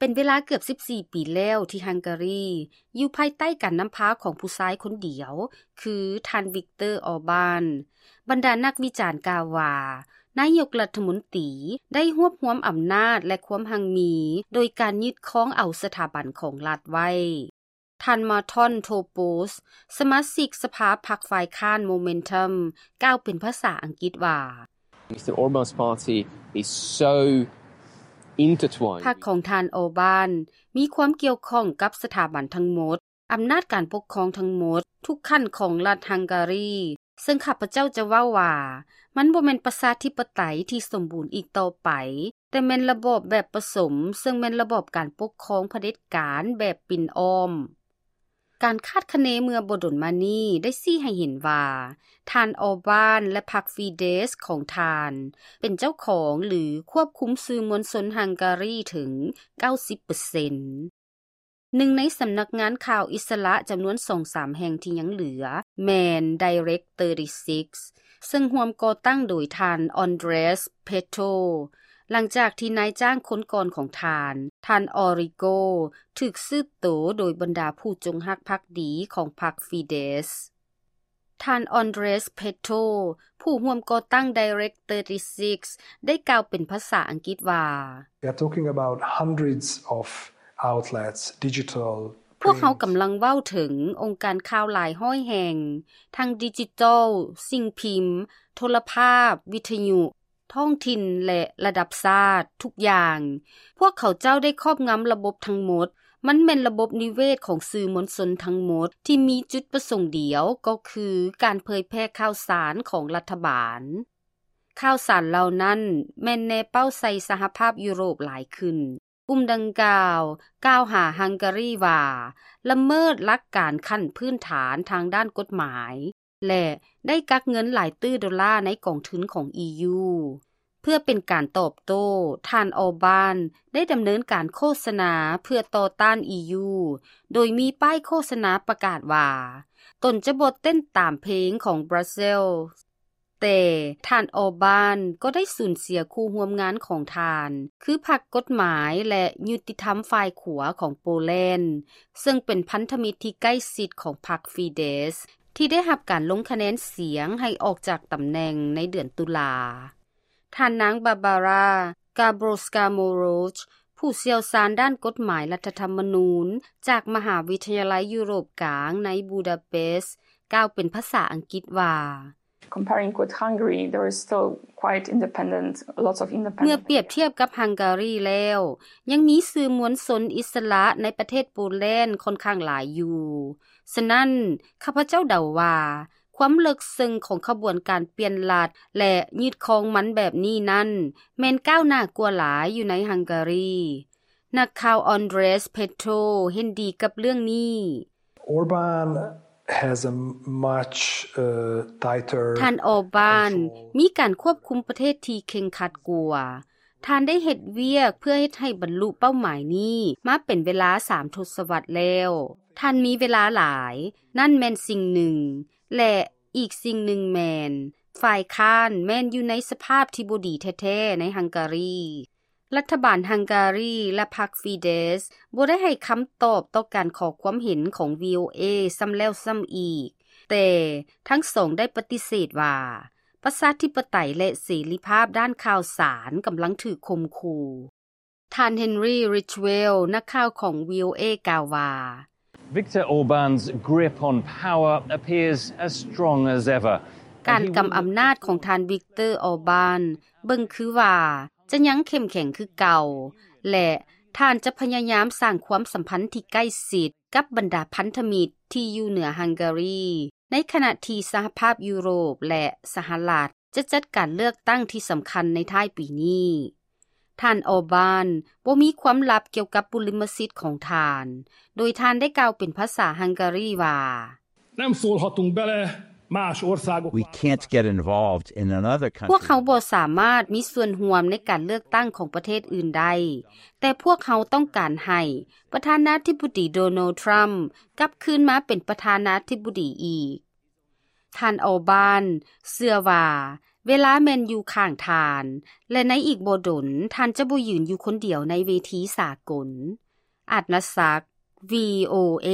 ປັນເວລາເກືອບສິບສີ່ປີແລ້ວທີ່ຮັງກາຣີຢູ່ພາຍໃຕ້ການນຳພາຂອງຜູ້ຊາຍຄົນດຽວ ຄືທ່ານ ວິກເຕີ ອອບານ. ບັນດານັກວິຈານກ່າວວ່າ ນາຍົກລັດຖະມົນຕີໄດ້ຮວບຮວມອຳນາດ ແລະ ຄວາມຮັ່ງມີ ໂດຍການຍຶດຄອງເອົາສະຖາບັນຂອງລັດໄວ້. ທ່ານ ມາທອນ ໂທໂປສ ສະມາຊິກສະພາພັກຝ່າຍຄ້ານ ໂມເມັນທັມ ກ່າວເປັນພາສາອັງກິດວ່າ Mister Orban's party is so intertwined. ພັກຂອງທ່ານ ອອບານ ມີຄວາມກ່ຽວຂ້ອງກັບສະຖາບັນທັງໝົດ, ອຳນາດການປົກຄອງທັງໝົດ, ທຸກຂັ້ນຂອງລັດຮັງກາຣີ, ເຊິ່ງຂ້າພະເຈົ້າຈະເວົ້າວ່າ ມັນບໍ່ແມ່ນປະຊາທິປະໄຕທີ່ສົມບູນອີກຕໍ່ໄປ, ແຕ່ແມ່ນລະບອບແບບປະສົມ, ເຊິ່ງແມ່ນລະບອບການປົກຄອງຜະເດັດການແບບປິ່ນອ້ອມ. ການຄາດຄະເນເມື່ອບໍ່ດົນມານີ້ໄດ້ຊີ້ໃຫ້ເຫັນວ່າ ທ່ານ ອອບານ ແລະ ພັກຟີເດສຂອງທ່ານ ເປັນເຈົ້າຂອງ ຫຼື ຄວບຄຸມສື່ມວນຊົນຮັງກາຣີເຖິງເກົ້າສິບເປີເຊັນ. ໜຶ່ງໃນສຳນັກງານຂ່າວອິດສະຫຼະຈຳນວນສອງສາມແຫ່ງທີ່ຍັງເຫຼືອ ແມ່ນ Direct Thirty-Six ເຊິ່ງຮ່ວມກໍ່ຕັ້ງໂດຍທ່ານ ອອນເດຣສ ເພໂຕ ຫຼັງຈາກທີ່ນາຍຈ້າງຄົນກ່ອນຂອງທ່ານ, ທ່ານ ອອຣິໂກ ຖືກສືບໂຕໂດຍບັນດາຜູ້ຈົງຮັກພັກດີຂອງພັກຟີເດສ. ທ່ານ ອອນເດຣສ ເພໂຕ ຜູ້ຮ່ວມກໍ່ຕັ້ງ Direct Thirty-Six ໄດ້ກ່າວເປັນພາສາອັງກິດວ່າ We are talking about hundreds of outlets, digital, ພວກເຮົາກຳລັງເວົ້າເຖິງອົງການຂ່າວຫຼາຍຮ້ອຍແຫ່ງ, ທັງດິຈິຕອລ, ສິ່ງພິມ, ໂທລະພາບ, ວິທະຍຸ, ທ້ອງຖິ່ນ ແລະ ລະດັບຊາດ, ທຸກຢ່າງ. ພວກເຂົາເຈົ້າໄດ້ຄອບງຳລະບົບທັງໝົດ. ມັນແມ່ນລະບົບນິເວດຂອງສື່ມວນຊົນທັງໝົດ ທີ່ມີຈຸດປະສົງດຽວ ກໍຄືການເຜີຍແຜ່ຂ່າວສານຂອງລັດຖະບານ. ຂ່າວສານເຫຼົ່ານັ້ນແມ່ນແນເປົ້າໃສ່ສະຫະພາບຢູໂຣບຫຼາຍຂຶ້ນ. ກຸ່ມດັ່ງກ່າວກ່າວຫາຮັງກາຣີວ່າ ລະເມີດຫຼັກການຂັ້ນພື້ນຖານທາງດ້ານກົດໝາຍ ແລະ ໄດ້ກັກເງິນຫຼາຍຕື້ໂດລາໃນກອງທຶນຂອງ ອີ ຢູ. ເພື່ອເປັນການຕອບໂຕ້, ທ່ານ ອອບານ ໄດ້ດຳເນີນການໂຄສະນາເພື່ອຕໍ່ຕ້ານ ອີ ຢູ ໂດຍມີປ້າຍໂຄສະນາປະກາດວ່າ ຕົນຈະບໍ່ເຕັ້ນຕາມເພງຂອງບຣັສເຊລ. ແຕ່ທ່ານ ອອບານ ກໍໄດ້ສູນເສຍຄູ່ຮ່ວມງານຂອງທ່ານ ຄືພັກກົດໝາຍ ແລະ ຍຸຕິທຳຝ່າຍຂວາຂອງໂປແລນ ເຊິ່ງເປັນພັນທະມິດທີ່ໃກ້ຊິດຂອງພັກຟີເດສ ທີ່ໄດ້ຮັບການລົງຄະແນນສຽງໃຫ້ອອກຈາກຕຳແໜ່ງໃນເດືອນຕຸລາ. ທ່ານນາງ ບາບາຣາ ກາໂບຣສກາໂມໂຣຊ ຜູ້ຊ່ຽວຊານດ້ານກົດໝາຍລັດຖະທຳມະນູນ ຈາກມະຫາວິທະຍາໄລຢູໂຣບກາງໃນບູດາເປສ ກ່າວເປັນພາສາອັງກິດວ່າ Comparing with Hungary, there is still quite independent, lots of independent ເມື່ອປຽບທຽບກັບຮັງກາຣີແລ້ວ ຍັງມີສື່ມວນຊົນອິດສະຫຼະໃນປະເທດໂປແລນຂ້ອນຂ້າງຫຼາຍຢູ່. ສະນັ້ນ, ຂ້າພະເຈົ້າເດົາວ່າ ຄວາມເລິກເຊິ່ງຂອງຂະບວນການປ່ຽນລັດ ແລະ ຍຶດຄອງມັນແບບນີ້ນັ້ນ ແມ່ນກ້າວໜ້າກວ່າຫຼາຍຢູ່ໃນຮັງກາຣີ. ນັກຂ່າວ ອອນເດຣສ ເພໂຕ ເຫັນດີກັບເລື່ອງນີ້. Orban has a much, uh, tighter ທ່ານ ອອບານ control. ມີການຄວບຄຸມປະເທດທີ່ເຄັ່ງຄັດກວ່າ. ທ່ານໄດ້ເຮັດວຽກເພື່ອເຮັດໃຫ້ບັນລຸເປົ້າໝາຍນີ້ມາເປັນເວລາສາມທົດສະວັດແລ້ວ. ທ່ານມີເວລາຫຼາຍ, ນັ້ນແມ່ນສິ່ງໜຶ່ງ, ແລະ ອີກສິ່ງໜຶ່ງແມ່ນ ຝ່າຍຄ້ານແມ່ນຢູ່ໃນສະພາບທີ່ບໍ່ດີແທ້ໆໃນຮັງກາຣີ. ລັດຖະບານຮັງກາຣີ ແລະ ພັກຟີເດສ ບໍ່ໄດ້ໃຫ້ຄຳຕອບຕໍ່ການຂໍຄວາມເຫັນຂອງ ວີໂອເອ ຊ້ຳແລ້ວຊ້ຳອີກ, ແຕ່ທັງສອງໄດ້ປະຕິເສດວ່າ ປະຊາທິປະໄຕ ແລະ ເສລີພາບດ້ານຂ່າວສານກຳລັງຖືກຂົ່ມຂູ່. ທ່ານ ເຮນຣີ ຣິດເວລ ນັກຂ່າວຂອງ ວີໂອເອ ກ່າວວ່າ Viktor Orban's grip on power appears as strong as ever. ການກຳອຳນາດຂອງທ່ານ ວິກເຕີ ອອບານ ເບິ່ງຄືວ່າຈະຍັງເຂັ້ມແຂງຄືເກົ່າ ແລະ ທ່ານຈະພະຍາຍາມສ້າງຄວາມສຳພັນທີ່ໃກ້ຊິດກັບບັນດາພັນທະມິດທີ່ຢູ່ເໜືອຮັງກາຣີ, ໃນຂະນະທີ່ສະຫະພາບຢູໂຣບ ແລະ ສະຫະລັດ ຈະຈັດການເລືອກຕັ້ງທີ່ສຳຄັນໃນທ້າຍປີນີ້. ທ່ານ ອອບານ ບໍ່ມີຄວາມລັບກ່ຽວກັບບຸລິມະສິດຂອງທ່ານ, ໂດຍທ່ານໄດ້ກ່າວເປັນພາສາຮັງກາຣີວ່າ Nem szólhatunk bele más We can't get involved in another country. ພວກເຮົາບໍ່ສາມາດມີສ່ວນຮ່ວມໃນການເລືອກຕັ້ງຂອງປະເທດອື່ນໄດ້, ແຕ່ພວກເຮົາຕ້ອງການໃຫ້ປະທານາທິບໍດີ ໂດນັລ ທຣຳ ກັບຄືນມາເປັນປະທານາທິບໍດີອີກ. ທ່ານ ອອບານ ເຊື່ອວ່າ ເວລາແມ່ນຢູ່ຂ້າງທ່ານ ແລະໃນອີກບໍ່ດົນ ທ່ານຈະບໍ່ຢືນຢູ່ຄົນດຽວໃນເວທີສາກົນ. ອາດນະສັກ ວີໂອເອ.